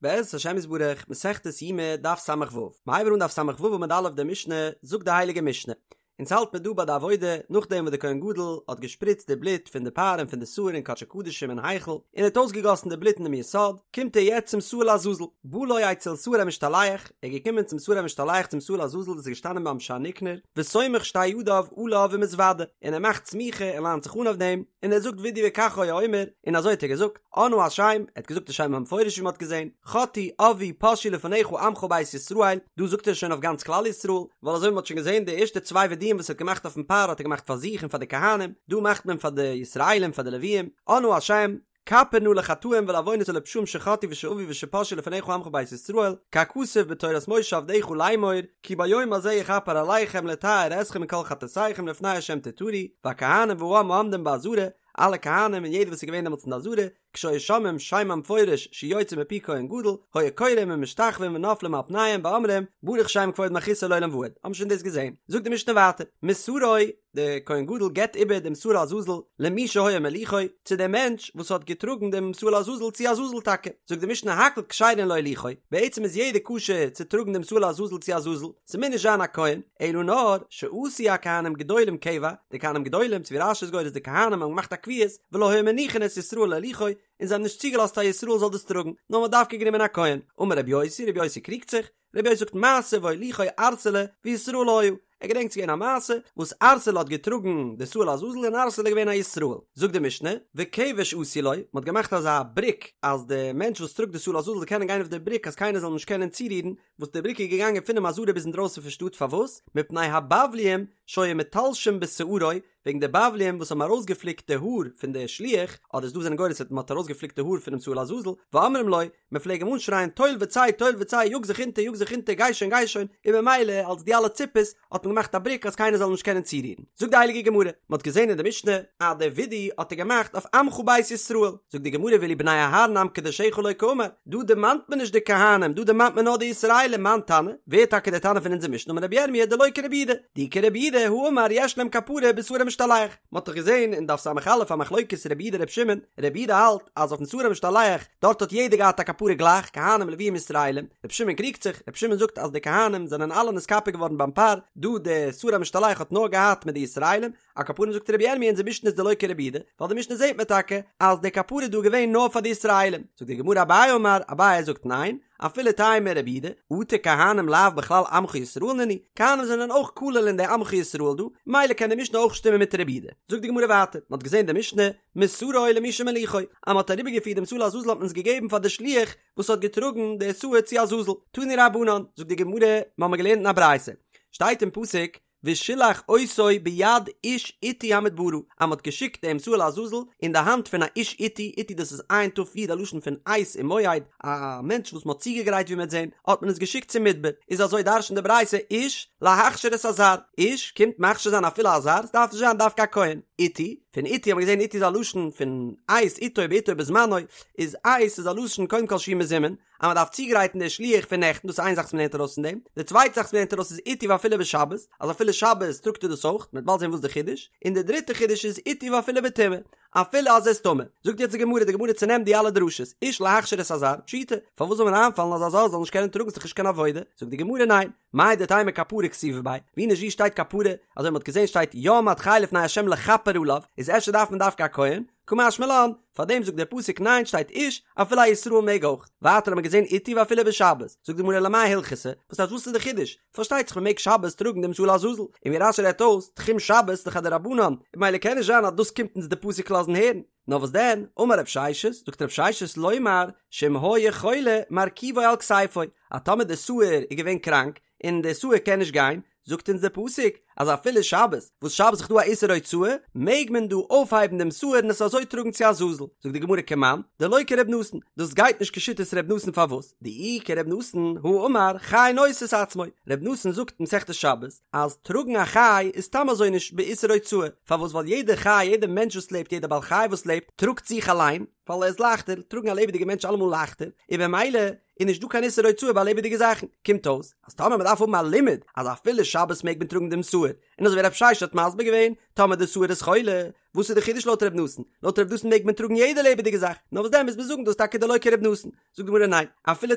בעזרת השם יתברך, מסכת יומא, דף ס"ו. מ'הייבן אן דף ס"ו עמוד א' די משנה, זאגט די הייליגע משנה. אונז האלט מיר דא ביי די עבודה, נאכדעם וואס די כהן גדול האט געשפריצט די בלוט פון די פר און פון די שעיר אין קדשי קדשים אין היכל, און ער האט אויסגעגאסן די בלוט אינעם יסוד, קומט ער יעצט צום שעיר לעזאזל. בא לו אצל שעיר המשתלח, ער איז געקומען צום שעיר המשתלח צום שעיר לעזאזל וואס איז געשטאנען ביים שער ניקנור, וסומך שתי ידיו עליו ומתוודה, און ער מאכט סמיכה און ליינט זיך אן אויף דעם, און ער זאגט וידוי וכך היה אומר, און אזוי האט ער געזאגט. אנא השם, ער האט געזאגט די שם המפורש ווי מען האט געזען, חטאו עוו פשעו לפניך עמך בית ישראל, דא זאגט ער שוין אויף גאנץ כלל ישראל, ווייל אזוי ווי מען האט שוין געזען די ערשטע צוויי וידויים וואס ער האט געמאכט אויפן פר האט ער געמאכט פאר זיך און פאר די כהנים, דא מאכט מען פאר די ישראלים פאר די לוויים, אנא השם, כפר נא לחטאים ולעוונות ולפשעים שחטאו ושעוו ושפשעו לפניך עמך בית ישראל, ככתוב בתורת משה עבדך לאמור, כי ביום הזה יכפר עליכם לטהר אתכם מכל חטאתיכם לפני השם תטהרו, והכהנים והעם העומדים בעזרה, אלע כהנים און יעדער וואס איז געווען דעמאלטס אין די עזרה, כשהיו שומעים שם המפורש שיוצא מפי כהן גדול, היו כורעים ומשתחווים ונופלים על פניהם ואומרים, ברוך שם כבוד מלכותו לעולם ועד. האבן שוין דאס געזען. זאגט די משנה ווייטער, מסרו, דער כהן גדול געבט איבער דעם שעיר לעזאזל למי שהיה מוליכו, צו דעם מענטש וואס האט געטראגן דעם שעיר לעזאזל צו עזאזל טאקע. זאגט די משנה הכל כשרין להוליכו, בעצם איז יעדער כשר צו טראגן דעם שעיר לעזאזל צו עזאזל, ס'מוז נישט זיין א כהן, אלא נאר שעשו הכהנים גדולים קבע, די כהנים גדולים, צו ווי רש"י איז גורס די כהנים האבן געמאכט א קביעות, ולא היו מניחין את ישראל להוליכו, און זיי האבן נישט צוגעלאזט א ישראל זאל דאס טראגן, נאר מ'האט דווקא גענומען א כהן. אמר רבי יוסי, רבי יוסי קריגט זיך, רבי יוסי זאגט מעשה והוליכו ערסלא וישראל היה, ער געדענקט ס'איז געווען א מעשה וואס ערסלא האט געטראגן די שעיר לעזאזל און ערסלא איז געווען א ישראל. זאגט די משנה, וכבש עשו לו, מ'האט געמאכט אזא בריק אז די מענטש וואס טראגט די שעיר לעזאזל זאל קענען גיין אויף די בריק אז קיינער זאל אים נישט קענען צורירן, וואס די בריק איז געגאנגען פונעם עזרה ביז אינדרויסן פון שטאט פארוואס? מפני הבבליים שהיו מתלשים בשערו, וועגן די בבליים וואס האבן ארויסגעפליקט די האר פון די שליח, אדער ס'דא זענען גורס אז מען האט ארויסגעפליקט די האר פונעם שעיר לעזאזל, ואומרים לו, מען פלעג אים אנשרייען טול וצא טול וצא יאג זיך אונטער יאג זיך אונטער גיי שוין גיי שוין, און ממילא אלס די אלע ציפעס האט מען געמאכט א בריק אז קיינער זאל אים נישט קענען צורירן. זאגט די הייליגע גמרא, מען האט געזען אין די משנה אז די וידוי האט ער געמאכט אויף עמך בית ישראל, זאגט די גמרא ואילו בני אהרן עם קדשך לא קאמר, דא דערמאנט מען נישט די כהנים, דא דערמאנט מען נאר די ישראלים, מאן תנא, ווער איז טאקע דער תנא פון אונזער משנה, אמר רבי ירמיה דלא כרבי יהודה, דאי כרבי יהודה הא אמר יש להם כפרה בשעיר המשתלח, מען האט דאך געזען אין דף ס"א א מחלוקת רבי יהודה רבי שמעון, רבי יהודה האלט אז אויפן שעיר המשתלח דארט האט יעדער געהאט א כפרה גלייך, כהנים לוויים ישראלים, רבי שמעון קריגט זיך, רבי שמעון זאגט אז די כהנים זענען אלע נתכפר געווארן ביים פר, דא די שעיר המשתלח האט נאר געהאט מיט די ישראלים, על כל פנים זאגט רבי ירמי' אונזער משנה איז דלא כרבי יהודה, ווייל די משנה זעט מען טאקע אז די כפרה איז דא געווען נאר פאר די ישראלים, זאגט די גמרא אביי אמר, אביי זאגט ניין, אפילו תימא רבי יהודה, אטו כהנים לאו בכלל עמך ישראל נינהו, כהנים זענען אויך כולל אין די עמך ישראל דא, ממילא קען די משנה אויך שטימען מיט רבי יהודה. זאגט די גמרא ווייטער, מען האט געזען די משנה, מסרו למי שמוליכו, אז מען האט אריבערגעפירט דעם שעיר לעזאזל האט מען עס געגעבן פאר די שליח וואס האט געטראגן די שעיר צו עזאזל, תנו רבנן, זאגט די גמרא, מיר האבן געלערנט אין א ברייתא, שטייט אין פסוק, ושלח אותו ביד איש עתי המדברה, אז מ'האט געשיקט דעם שעיר לעזאזל אין די האנט פון א איש עתי, עתי דאס איז עין תיו יוד א לשון פון עת און מועד, א מענטש וואס מ'האט צוגעגרייט ווי מ'וועט זען, האט מען עס געשיקט צום מדבר, איז אזוי דרש'נט די ברייתא איש להכשיר את הזר, איש קומט מכשיר זיין אפילו א זר, ס'דארף נישט זיין דווקא א כהן, עתי, פון עתי האט מען געזען עתי איז א לשון פון עת, עתו בעתו בזמנו, איז עת איז א לשון קודם כל שהוא מזומן, אז מען דארף צוגרייטן די שליח פון נעכטן, דאס איז איין זאך וואס מען לערנט ארויס פון דעם, די צווייטע זאך וואס מען לערנט ארויס איז עתי ואפילו בשבת, אז אפילו שבת טראגט ער דאס אויך, מען וועט באלד זען וואס די חידוש, און די דריטע חידוש איז עתי ואפילו בטומאה, אפילו אז ער איז טמא. זאגט יעצט די גמרא, די גמרא צונעמט די אלע דרשות, איש להכשיר את הזר, פשיטא, פארוואס זאל מיר איינפאלן אז א זר זאל נישט קענען טראגן ס'איז דאך נישט קיין עבודה, זאגט די גמרא ניין, מהו דתימא כפרה כתיבא ביה, ווי נישט ווי שטייט כפרה, אזוי מען האט געזען שטייט יעמד חי לפני ה' לכפר עליו, איז אפשר דארף מען דווקא א כהן, קא משמע לן, פאר דעם זאגט דער פסוק ניין שטייט איש, אפילו א ישראל מעג אויך. ווייטער האט מען געזען עתי ואפילו בשבת, זאגט די גמרא למאי הלכתא, וואס הייסט וואס איז די חידוש? פארשטייט זיך מען מעג שבת טראגן דעם שעיר לעזאזל, און ווי רש"י רעדט אויס, תחום שבת איז דאך א דרבנן, און ממילא קען נישט זיין אז דאס קומט אונז די פסוק לאזן הערן. נאר וואס דען, אמר רב ששת, זאגט רב ששת לומר, שאם היה חולה מרכיבו על כתפו, אז טאמער די שעיר איז געווען קראנק, און די שעיר קען נישט גיין, זאגט אונז דער פסוק אז אפילו שבת, וואס שבת איז דא א איסור הוצאה, מעג מען דא אויפהייבן דעם שעיר און עס אזוי טראגן צו עזאזל. זאגט די גמרא כמאן, דלא כר' נתן, דאס גייט נישט כשיטת ר' נתן פארוואס? דאי כר' נתן, הא אמר, חי נושא את עצמו, ר' נתן זאגט אין מסכת שבת, אז טראגן א חי איז סתם אזוי נישט באיסור הוצאה, פארוואס ווייל יעדע חי, יעדע מענטש וואס לעבט, יעדע בעל חי וואס לעבט, טראגט זיך אליין, ווייל ער איז לייכטער, טראגן א לעבעדיגע מענטש אלעמאל לייכטער, און במילא איז נישט דא קיין איסור הוצאה ביי לעבעדיגע זאכן, קומט אויס אז טאמער מען דארף האבן א לימוד אז אפילו שבת מעג מען טראגן דעם שעיר, און אזוי ווי רב ששת האט מסביר געווען, טאמער די שעיר איז חולה, וואס איז די חידוש לויט ר' נתן? לויט ר' נתן מעג מען טראגן יעדע לעבעדיגע זאך, נאר וואס דען מוז מען זאגן דאס טאקע דלא כר' נתן? זאגט די גמרא ניין, אפילו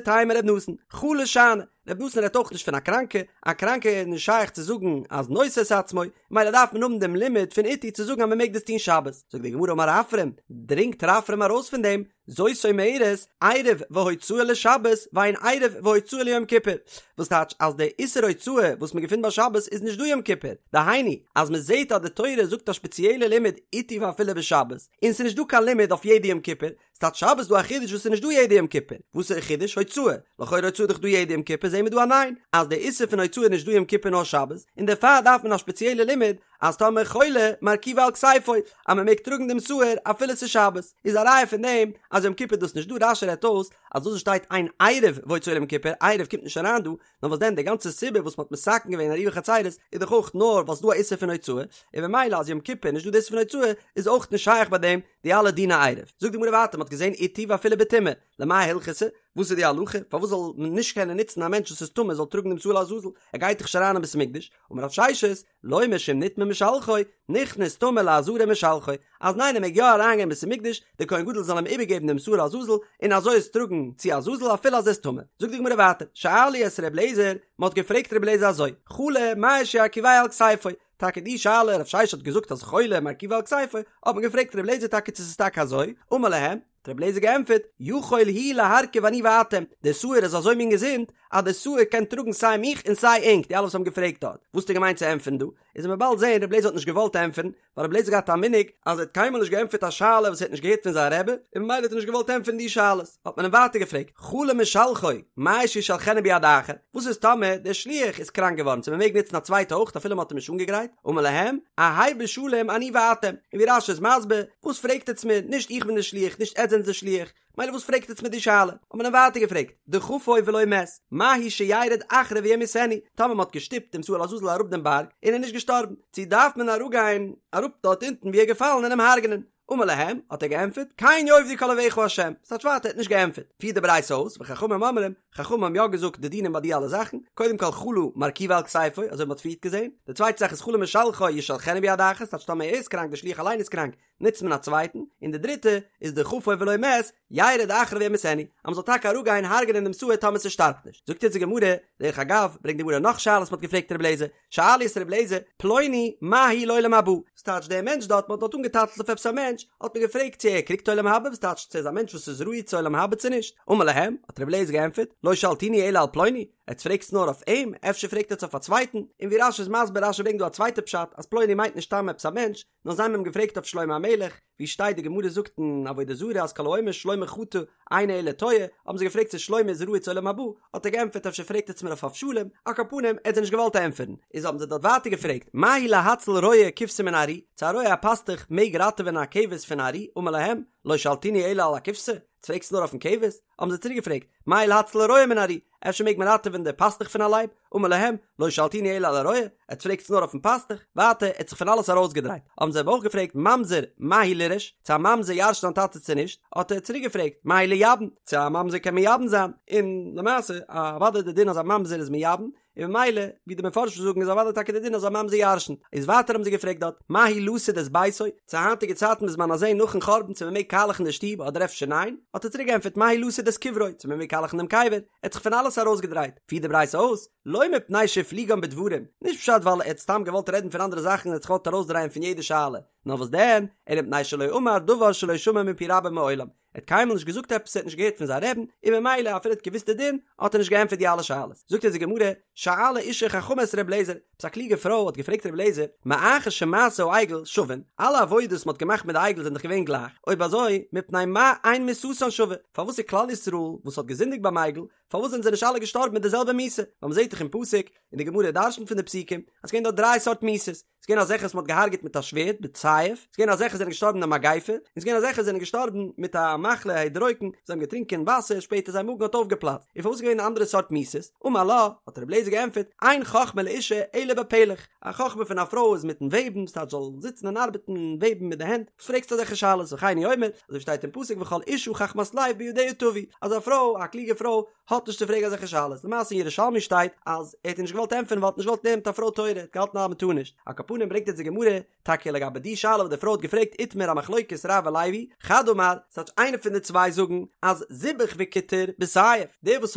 תימא ר' נתן, חלה שאני, ר' נתן רעדט אויך נישט פון א קראנקע, א קראנקע איז נישט שייך צו זאגן אז נושא את עצמו, מילא דארף מען האבן דעם לימוד פון אתי צו זאגן אז מען מעג דאס טון שבת, זאגט די גמרא אמר רפרם, דרינגט רפרם ארויס פון דעם, זאת אומרת, עירוב והוצאה לשבת ואין עירוב והוצאה ליום כיפור, וואס טייטש אז די איסור הוצאה וואס מען געפינט ביי שבת איז נישט דא יום כיפור, דהיינו אז מען זעט אז די תורה זאגט א שפעציעלע לימוד אתי ואפילו בשבת, און ס'איז נישט דא קיין לימוד אויף יעדע יום כיפור, ס'טייטש שבת איז דא א חידוש וואס איז נישט דא יעדע יום כיפור, וואס איז די חידוש? הוצאה, לכאורה הוצאה איז דאך דא יעדע יום כיפור, זעהן מיר דא א ניין, אז די איסור פון הוצאה איז נישט דא יום כיפור נאר שבת, און דערפאר דארף מען א שפעציעלע לימוד אז טאמער חולה מרכיבו על כתפו אז מען מעג טראגן דעם שעיר אפילו ס'איז שבת, איז א ראיה פון דעם אז יום כיפור איז דאס נישט דא, רש"י רעדט אויס אז דאס וואס שטייט אין עירוב והוצאה ליום כיפור, עירוב קומט נישט אריין דא, נאר וואס דען די גאנצע סיבה וואס מ'האט מתקן געווען עירובי חצירות איז דאך אויך נאר ווייל ס'איז דא א איסור פון הוצאה, און ממילא אז יום כיפור איז נישט דא די איסור פון הוצאה איז אויך נישט שייך ביי דעם די אלע דיני עירוב. זאגט די גמרא ווייטער מ'האט געזען אתי ואפילו בטומאה, למאי הלכתא? וואס איז די הלכה? פארוואס זאל מען נישט קענען נוצן א מענטש וואס איז טמא זאל טראגן דעם שעיר לעזאזל? ער גייט דאך נישט אריין אין בית המקדש, אמר רב ששת, לומר שאם נטמא משלחו, נכנס טמא לעזרה ומשלחו, אז ניין ער מעג יא אריינגיין אין בית המקדש, דער כהן גדול זאל אים איבערגעבן דעם שעיר לעזאזל, און אזוי עס טראגן צו עזאזל אפילו אז ער איז טמא. זאגט די גמרא ווייטער, שאלו את ר' אליעזר, מען האט געפרעגט ר' אליעזר אזוי, חלה מהו שירכיבהו על כתפו, טאקע די שאלה, רב ששת האט געזאגט אז חולה מרכיבו על כתפו, האט מען געפרעגט ר' אליעזר טאקע צו ס'איז טאקע אזוי, אמר להם, האט רבי אליעזר געענטפערט, יכול הוא להרכיב אני ואתם, דער שעיר איז אזוי מין געזונט, אז דער שעיר קען טראגן סיי מיך און סיי ענק, די אלע וואס האבן געפרעגט דארט, וואס האט ער געמיינט צו ענטפערן דא? איז וועט מען באלד זען, רבי אליעזר האט נישט געוואלט ענטפערן, ווייל רבי אליעזר האט געהאט א מנהג, אז ער האט קיינמאל נישט געענטפערט א שאלה וואס ער האט נישט געהערט פון זיין רבי, און ממילא האט ער נישט געוואלט ענטפערן די שאלות. האט מען אים ווייטער געפרעגט, חלה משלחו, מהו שישלחנו ביד אחר, וואס איז טאמער דער שליח איז קראנק געווארן, צו מען מעג נוצן א צווייטע אויך אפילו מען האט אים נישט אנגעגרייט? אמר להם, אהא בשלום אני ואתם, און ווי רש"י איז מסביר, וואס פרעגט עטץ מיר, נישט איך בין דער שליח, נישט עטץ זענטס דער שליח, מילא וואס פרעגט עטץ מיר די שאלה? האט מען אים ווייטער געפרעגט, דחפו ולא מת, מהו שירד אחריו וימיתנו, טאמער מען האט געשטופט דעם שעיר לעזאזל אראפ דעם בארג, און ער איז נישט געשטארבן, צו דארף מען אראפגיין אראפ דארט אונטן ווי ער איז געפאלן און אים הרג'נען? אמר להם, האט ער געענטפערט, כן יאבדו כל אויביך ה', ס'טייטש ווייטער ער האט נישט געענטפערט, פירט די ברייתא אויס, וחכמים אומרים, חכמים האבן יא געזאגט די דינים ביי די אלע זאכן, קודם כל חלה מרכיבו על כתפו, אזוי ווי מ'האט פריערט געזען, די צווייטע זאך איז חלה משלחו ישלחנו ביד אחת, ס'טייטש טאמער ער איז קראנק די שליח אליין איז קראנק, נוצט מען א צווייטן, און די דריטע איז דחפו ולא מת, ירד אחריו וימיתנו, אז מ'זאל טאקע אראפגיין הרג'נען דעם שעיר טאמער ס'שטארבט נישט. זאגט יעצט די גמרא, דרך אגב, ברענגט די גמרא נאך שאלות מ'האט געפרעגט ר' אליעזר, שאלו את ר' אליעזר, פלוני מהו לעולם הבא? וואס טייטש דער מענטש דארט, מ'האט דארט אנגעטייטלט אויף עפעס א מענטש, האט מען געפרעגט צו ער קריגט עולם הבא, וואס טייטש צו ער איז א מענטש וואס איז ראוי צו עולם הבא צו נישט, אמר להם, האט ר' אליעזר געענטפערט, לא שאלתוני אלא על פלוני, עטס פרעגטס נאר אויף אים, אפשר פרעגט עטס אויף א צווייטן, און ווי רש"י איז מסביר, רש"י ברענגט דא א צווייטע פשט, אז פלוני מיינט נישט סתם עפעס א מענטש, נאר זיי האבן אים געפרעגט אויף שלמה המלך, ווי שטייט די גמרא זאגט אין עבודה זרה אז כל האומר שלמה חטא אינו אלא טועה, האבן זיי געפרעגט צו שלמה איז ראוי צו עולם הבא, האט ער געענטפערט אפשר פרעגט עטס מיר אויף אבשלום, על כל פנים ער האט זיי נישט געוואלט ענטפערן, איז האבן זיי דארט ווייטער געפרעגט מהו להציל רועה כבשה מן הארי, צו א רועה א פאסטוך מעג ראטעווען א כבש פון ארי, אמר להם, לא שאלתוני אלא על הכבשה, עטס פרעגסט נאר אויפן כבש? האבן זיי צוריק געפרעגט, מהו להציל הרועה מן הארי, אפשר מעג מען ראטעווען די פאסטוך פון א לייב? אמר להם, לא שאלתוני אלא על הרועה, עטס פרעגטס נאר אויפן פאסטוך? ווייטער, ער האט זיך פון אלעס ארויסגעדרייט. האבן זיי אים אויך געפרעגט, ממזר, מהו לירש, צו א ממזר ירש'ט זיין טאטע צו נישט? האט ער צוריק געפרעגט, מהו לייבם, צו א ממזר קען מייבם זיין? און למעשה, אוודאי די דין אז א ממזר איז מייבם, און ממילא, ווי די מפרשים זאגן איז אוודאי טאקע די דין אז א ממזר ירש'נט. איז ווייטער האבן זיי געפרעגט דארט, מהו לסוד את ביתו, צו היינטיגע צייטן בזמן הזה נאכן חורבן צו מ'מעג קאלעכן די שטוב אדער אפשר ניין? האט ער צוריק געענטפערט, מהו לסוד את קברו, צו מ'מעג קאלעכן דעם קבר, ער האט זיך פון אלעס ארויסגעדרייט. פירט די ברייתא אויס, לא מפני שהפליגן בדברים, נישט פשט ווייל ער האט סתם געוואלט רעדן פון אנדערע זאכן און האט זיך געוואלט ארויסדרייען פון יעדע שאלה, נאר וואס דען, אלא מפני שלא אמר דבר שלא שמע מפי רבו מעולם, ער האט קיינמאל נישט געזאגט עפעס ער האט נישט געהערט פון זיין רעבן, און ממילא אפילו ער האט געוואוסט די דין, האט ער נישט געענטפערט די אלע שאלות. זאגט אונז די גמרא, שאלה אישה חכמה את ר' אליעזר, עפעס א קלוגע פרוי האט געפרעגט ר' אליעזר, מאחר שמעשי העגל שווין, אלע עבודות וואס מען האט געמאכט מיט די עגל זענען דאך געווען גלייך, אויב אזוי, מפני מה אין מיתתן שווה, פארוואס איז כלל ישראל וואס האט געזינדיגט ביים עגל, פארוואס זענען זיי נישט אלע געשטארבן מיט די זעלבע מיתה? ווייל מען זעט דאך אין פסוק, און די גמרא דרשנ'ט פון די פסוקים, אז ס'געווען דארט דריי סארט מיתות. ס'איז געווען אזעלכע וואס מ'האט געהארגעט מיט א שווערד, בסייף, ס'איז געווען אזעלכע וואס זענען געשטארבן אין א מגיפה, און ס'איז געווען אזעלכע וואס זענען געשטארבן מיט א מחלה הדרוקן, זיי האבן געטרינקען וואסער, שפעטער זייער מאגן האט אויפגעפלאצט. און פארוואס איז געווען אנדערע סארט מיתות? אמר לה, האט רבי אליעזר געענטפערט, אין חכמה לאשה אלא בפלך, א חכמה פון א פרוי איז מיטן וועבן, ס'טייטש זאל זיצן און ארבעטן און וועבן מיט די הענט, וואס פרעגסטו אזעלכע שאלות, וכן הוא אומר, אזוי שטייט אין פסוק וכל אשה חכמת לב בידיה טווי, אז א פרוי, א קלוגע פרוי, האט נישט צו פרעגן אזעלכע שאלות, למעשה אין ירושלמי שטייט אז ער האט איר נישט געוואלט ענטפערן ווייל ער האט נישט געוואלט לערנען מיט א פרוי תורה, ער האט געהאלטן אז מ'טאר נישט, על כל פנים ברענגט אונז די גמרא טאקע לגבי די שאלה וואס די פרוי האט געפרעגט איתמר א מחלוקת רב ולוי, חד אמר, ס'טייטש איינער פון די צוויי זאגן אז זיבח וקיטר בסייף, דער וואס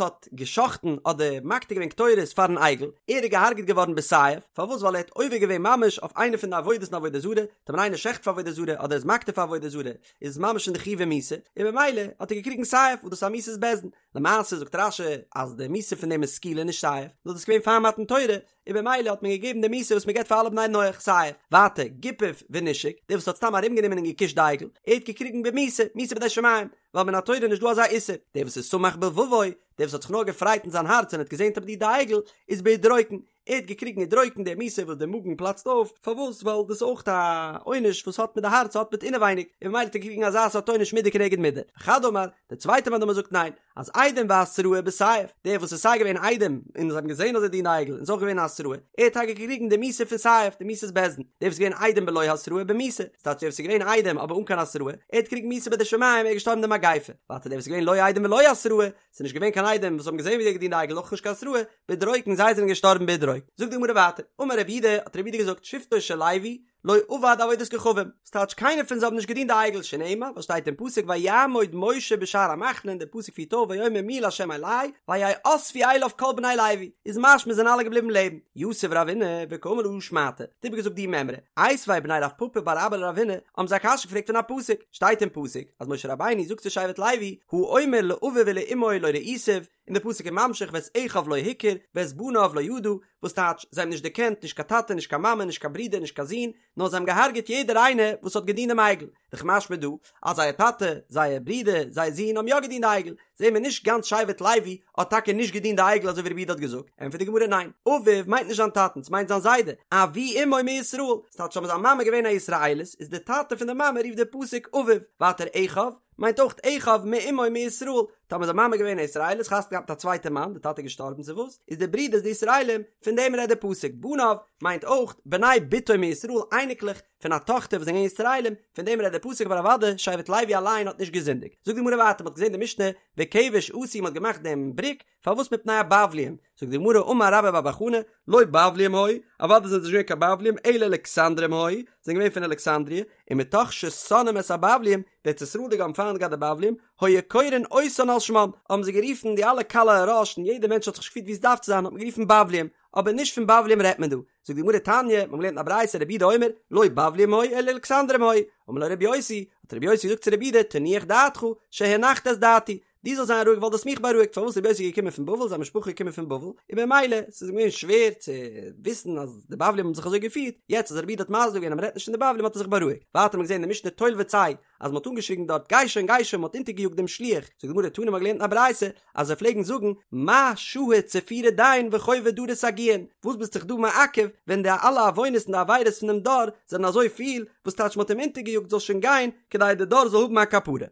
האט גע'שחט'ן אדער מקטיר געווען קטורת פארן עגל, ער איז געהארגעט געווארן בסייף, פארוואס ווייל ער האט עובר געווען ממש אויף איינע פון די עבודות אין עבודה זרה, טאמער איינער שעכט פאר עבודה זרה אדער איז מקטיר פאר עבודה זרה, איז עס ממש אין די חיובי מיתה, און במילא האט ער געקריגן סייף וואס דאס איז א מיתת בית דין, למעשה זאגט רש"י אז די מיתה פון דעם איז סקילה נישט סייף, נאר דאס איז געווען פאר מתן תורה, און במילא האט מען געגעבן די מיתה וואס מען געבט פאר אלע בני נח, סייף. ווייטער, גיפף ונישק, דער וואס האט סתם ארומגענומען און געקושט די עגל, ער האט געקריגן במיתה, מיתה בידי שמים, ווייל מן התורה איז נישט דא אזא איסור, דער וואס איז שמח בלבבו, דער וואס האט זיך נאר געפרייט אין זיין הארץ און האט געזען אז מ'דינט די עגל, איז בהדרוקן, ער האט געקריגן הדרוקן די מיתה וואס די מאגן פלאצט אויף, פארוואס? ווייל דאס איז אויך א עונש וואס האט מיט די הארץ האט מיט אינעווייניג, און ממילא האט ער געקריגן אזא סארט עונש מידה כנגד מידה. וחד אמר, דער צווייטער מאן דאמר זאגט ניין, אז עדים והתראה בסייף, דער וואס איז סיי געווען עדים און זיי האבן געזען אז ער דינט די עגל און איז אויך געווען א התראה, ער האט טאקע געקריגן די מיתה פון סייף, די מיתת בית דין, דער וואס איז געווען עדים בלא התראה במיתה, ס'טייטש דער וואס איז געווען עדים אבער אן קיין התראה, ער האט געקריגן מיתה בידי שמים, ער איז געשטארבן די מגיפה, ווייטער דער וואס איז געווען לא עדים ולא התראה, ס'איז נישט געווען קיין עדים וואס האבן געזען ווי ער האט געדינט די עגל אויך נישט קיין התראה, בהדרוקן זיי זענען געשטארבן בהדרוקן. זאגט די גמרא ווייטער, אמר רב יהודה, האט רב יהודה געזאגט, שבטו של לוי לא עבד עבודת כוכבים, ס'טייטש קיינער פון זיי האבן נישט געדינט די עגל, שנאמר, וואס שטייט אין פסוק ויעמוד משה בשער המחנה און דער פסוק פירט אויס ויאמר מי לה' אלי ויאספו אליו כל בני לוי, איז משמע זענען אלע געבליבן לעבן. יתיב רבינא וקאמר להא שמעתא, האט איבערגעזאגט די מימרא, איתיביה בני רב פפא בר אבא לרבינא, האבן זיי א קשיא געפרעגט פון א פסוק, שטייט אין פסוק אז משה רבינו זאגט צו שבט לוי, האומר לאביו ולאמו לא ראיתיו, און די פסוק איז ממשיך ואת אחיו לא הכיר ואת בניו לא ידע, וואס טייטש, זיי האבן נישט דערקענט נישט קיין טאטע נישט קיין מאמע נישט קיין ברודער נישט קיין זון, נאר זיי האבן געהארגעט יעדער איינער וואס האט געדינט דעם עגל, דאך משמע דא אז זייער טאטע, זייער ברודער, זייער זון האבן יא געדינט די עגל, זעהן מיר נישט גאנץ שבט לוי האט טאקע נישט געדינט די עגל אזוי ווי רב יהודה האט געזאגט, ענטפערט די גמרא ניין, אביו מיינט נישט זיין טאטן, ס'מיינט זיין זיידע, אבי אמו מישראל, ס'טייטש אז זיין מאמע געווען א ישראלית, איז די טאטע פון די מאמע רופט די פסוק אביו, ווייטער אחיו, מיינט אויך אחיו מאמו מישראל, טאמער זיין מאמע געווען א ישראלית חתונה געהאט מיט א צווייטע מאן, די טאטע איז געשטארבן צו וואס, איז די ברידערס די ישראלים, פון דעם רעדט די פסוק, בניו, מיינט אויך בני בתו מישראל, אייניקלעך פון א טאכטער וואס זענען געווען ישראלים, פון דעם רעדט די פסוק אבער אוודאי שבט לוי אליין האט נישט געזינדיגט. זאגט די גמרא ווייטער, מען האט געזען די משנה וכבש עשו מען האט געמאכט דעם בריק, פארוואס מפני הבבלים? זאגט די גמרא אמר רבה בר בר חנה, לא בבלים היו, אוודאי זענען זיי נישט געווען קיין בבלים, אלא אלכסנדרים היו, זענען געווען פון אלכסנדריע, ומתוך ששונאים את הבבלים, די ארץ ישראל'דיגע האבן פיינט געהאט די בבלים, היו קורין אותן על שמם, האבן זיי גערופן די אלע קלי הראש און יעדער מענטש האט זיך נישט געפירט ווי עס דארף צו זיין האט מען גערופן בבלים, אבער נישט פון בבלים רעדט מען דא. זאגט די גמרא תניא, מיר האבן געלערנט אין א ברייתא רבי יהודה אומר, לא בבלים היו אלא אלכסנדרים היו, אמר לו רבי יוסי, האט רבי יוסי געזאגט צו רבי יהודה, תנוח דעתך, שהנחת את דעתי, דו זאלסט זיין רואיג ווייל דו האסט מיך בארואיגט, פארוואס רבי יוסי איז געקומען פון בבל, זיין משפחה איז געקומען פון בבל, און במילא ס'איז אים געווען שווער צו וויסן אז די בבלים האבן זיך אזוי געפירט, יעצט אז רבי יהודה האט מסביר געווען אז מ'רעדט נישט פון די בבלים האט ער זיך בארואיגט. ווייטער האט מען געזען אין די משנה טול וצא, אז מ'האט אנגעשריגן דארט גיי שוין גיי שוין מ'האט אונטערגעיאגט דעם שליח, זאגט די גמרא תנא מ'האט געלערנט אין א ברייתא אז זיי פלעגן זאגן מה שהה צפירא דין וחובי דרא סגיאין, וואס ביסט זיך דא מעכב ווען די אלע עוונות און די עבירות פון דעם דור זענען אזוי פיל, וואס טייטש מ'האט אים אונטערגעיאגט זאל שוין גיין כדי די דור זאל האבן א כפרה.